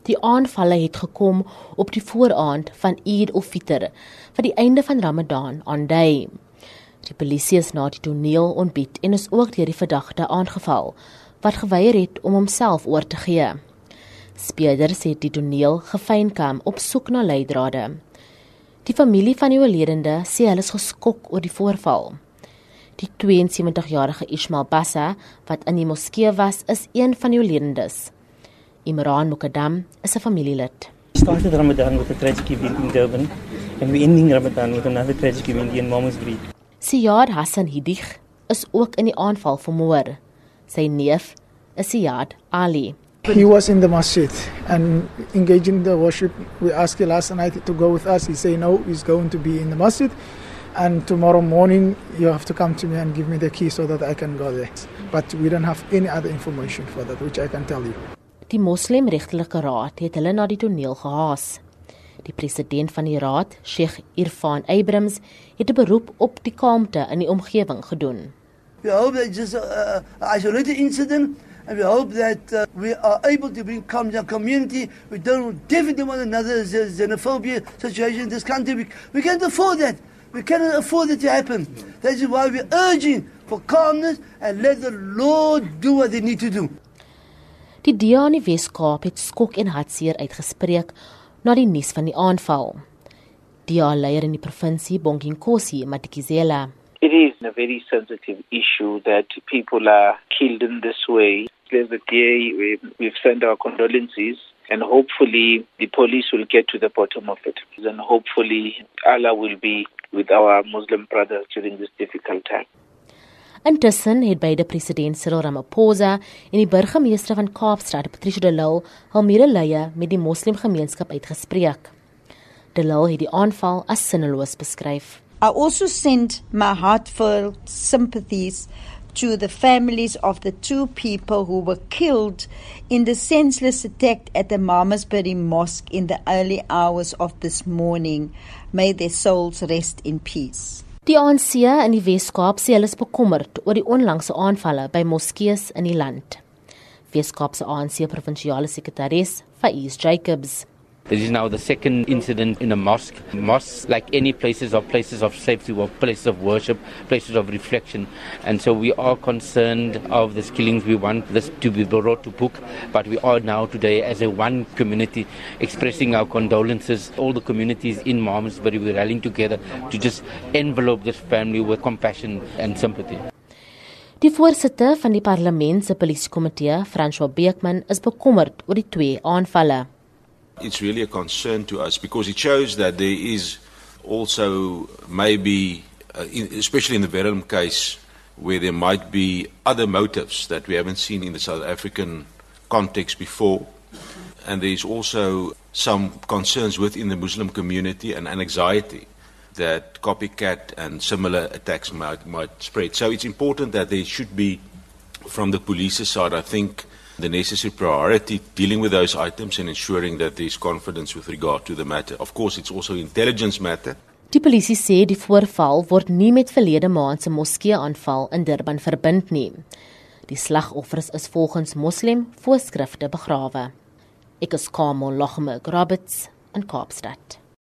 Die aanvalle het gekom op die vooraand van Eid al-Fitr, wat die einde van Ramadan aandui. Die polisie is na die toneel ontbied en is ook deur die verdagte aangeval, wat geweier het om homself oor te gee. Speurders het die toneel gefynkam op soek na leidrade. Die familie van die oorledende sê hulle is geskok oor die voorval. Die 72-jarige Ismail Bassa, wat in die moskee was, is een van die oorledendes. Imran Mukaddam is 'n familielid. We started Ramadan with a tragic event in Durban, and we're ending Ramadan with another tragic event in Malmesbury. Siyad Hassan Hidig is ook in die aanval vermoor. Sy neef is Siyad Ali. He was in the masjid and engaging the worship. We asked him last night to go with us. He said no, he's going to be in the masjid. And tomorrow morning, you have to come to me and give me the key so that I can go there. But we don't have any other information for that, which I can tell you. Die Moslimregtelike Raad het hulle na die toneel gehaas. Die president van die raad, Sheikh Irfan Abrams, het 'n beroep op die kalmte in die omgewing gedoen. We hope that it's just an isolated incident, and we hope that we are able to bring calm to our community. We definitely want another xenophobia situation in this country. We can't afford that. We cannot afford it to happen. That is why we're urging for calmness and let the Lord do what they need to do. Die DA in die Wes-Kaap het skok en hartseer uitgespreek na die nuus van die aanval. DA-leier in die provinsie, Bonginkosi Matikizela. It is a very sensitive issue that people are killed in this way. There's a day we've sent our condolences, and hopefully the police will get to the bottom of it. And hopefully Allah will be with our Muslim brothers during this difficult time. Intussen het beide president Cyril Ramaphosa en die burgemeester van Kaapstad, Patricia de Lille, hul medelee met die moslimgemeenskap uitgespreek. De Lille het die aanval as sinneloos beskryf. I also send my heartfelt sympathies to the families of the two people who were killed in the senseless attack at the Malmesbury Mosque in the early hours of this morning. May their souls rest in peace. Die ANC in die Wes-Kaap sê hulle is bekommerd oor die onlangse aanvalle by moskees in die land. Wes-Kaap se ANC provinsiale sekretaris, Faiz Jacobs. This is now the second incident in a mosque. Mosques, like any places, are places of safety, or places of worship, places of reflection. And so we are concerned of these killings. We want this to be brought to book. But we are now today, as a one community, expressing our condolences. All the communities in Malmesbury, we're rallying together to just envelope this family with compassion and sympathy. Die voorsitter van die parlement se polisiekomitee, François Beekman, is bekommerd oor die twee aanvalle. It's really a concern to us because it shows that there is also maybe, especially in the Verulam case, where there might be other motives that we haven't seen in the South African context before. And there is also some concerns within the Muslim community and anxiety that copycat and similar attacks might spread. So it's important that there should be, from the police's side, I think, the necessary priority dealing with those items and ensuring that there is confidence with regard to the matter. Of course, it's also intelligence matter. Die polisie sê die voorval word nie met verlede maand se moskee-aanval in Durban verbind nie. Die slagoffers is volgens moslim voorskrifte begrawe. Ek is Kamel Lachme Roberts in Kaapstad.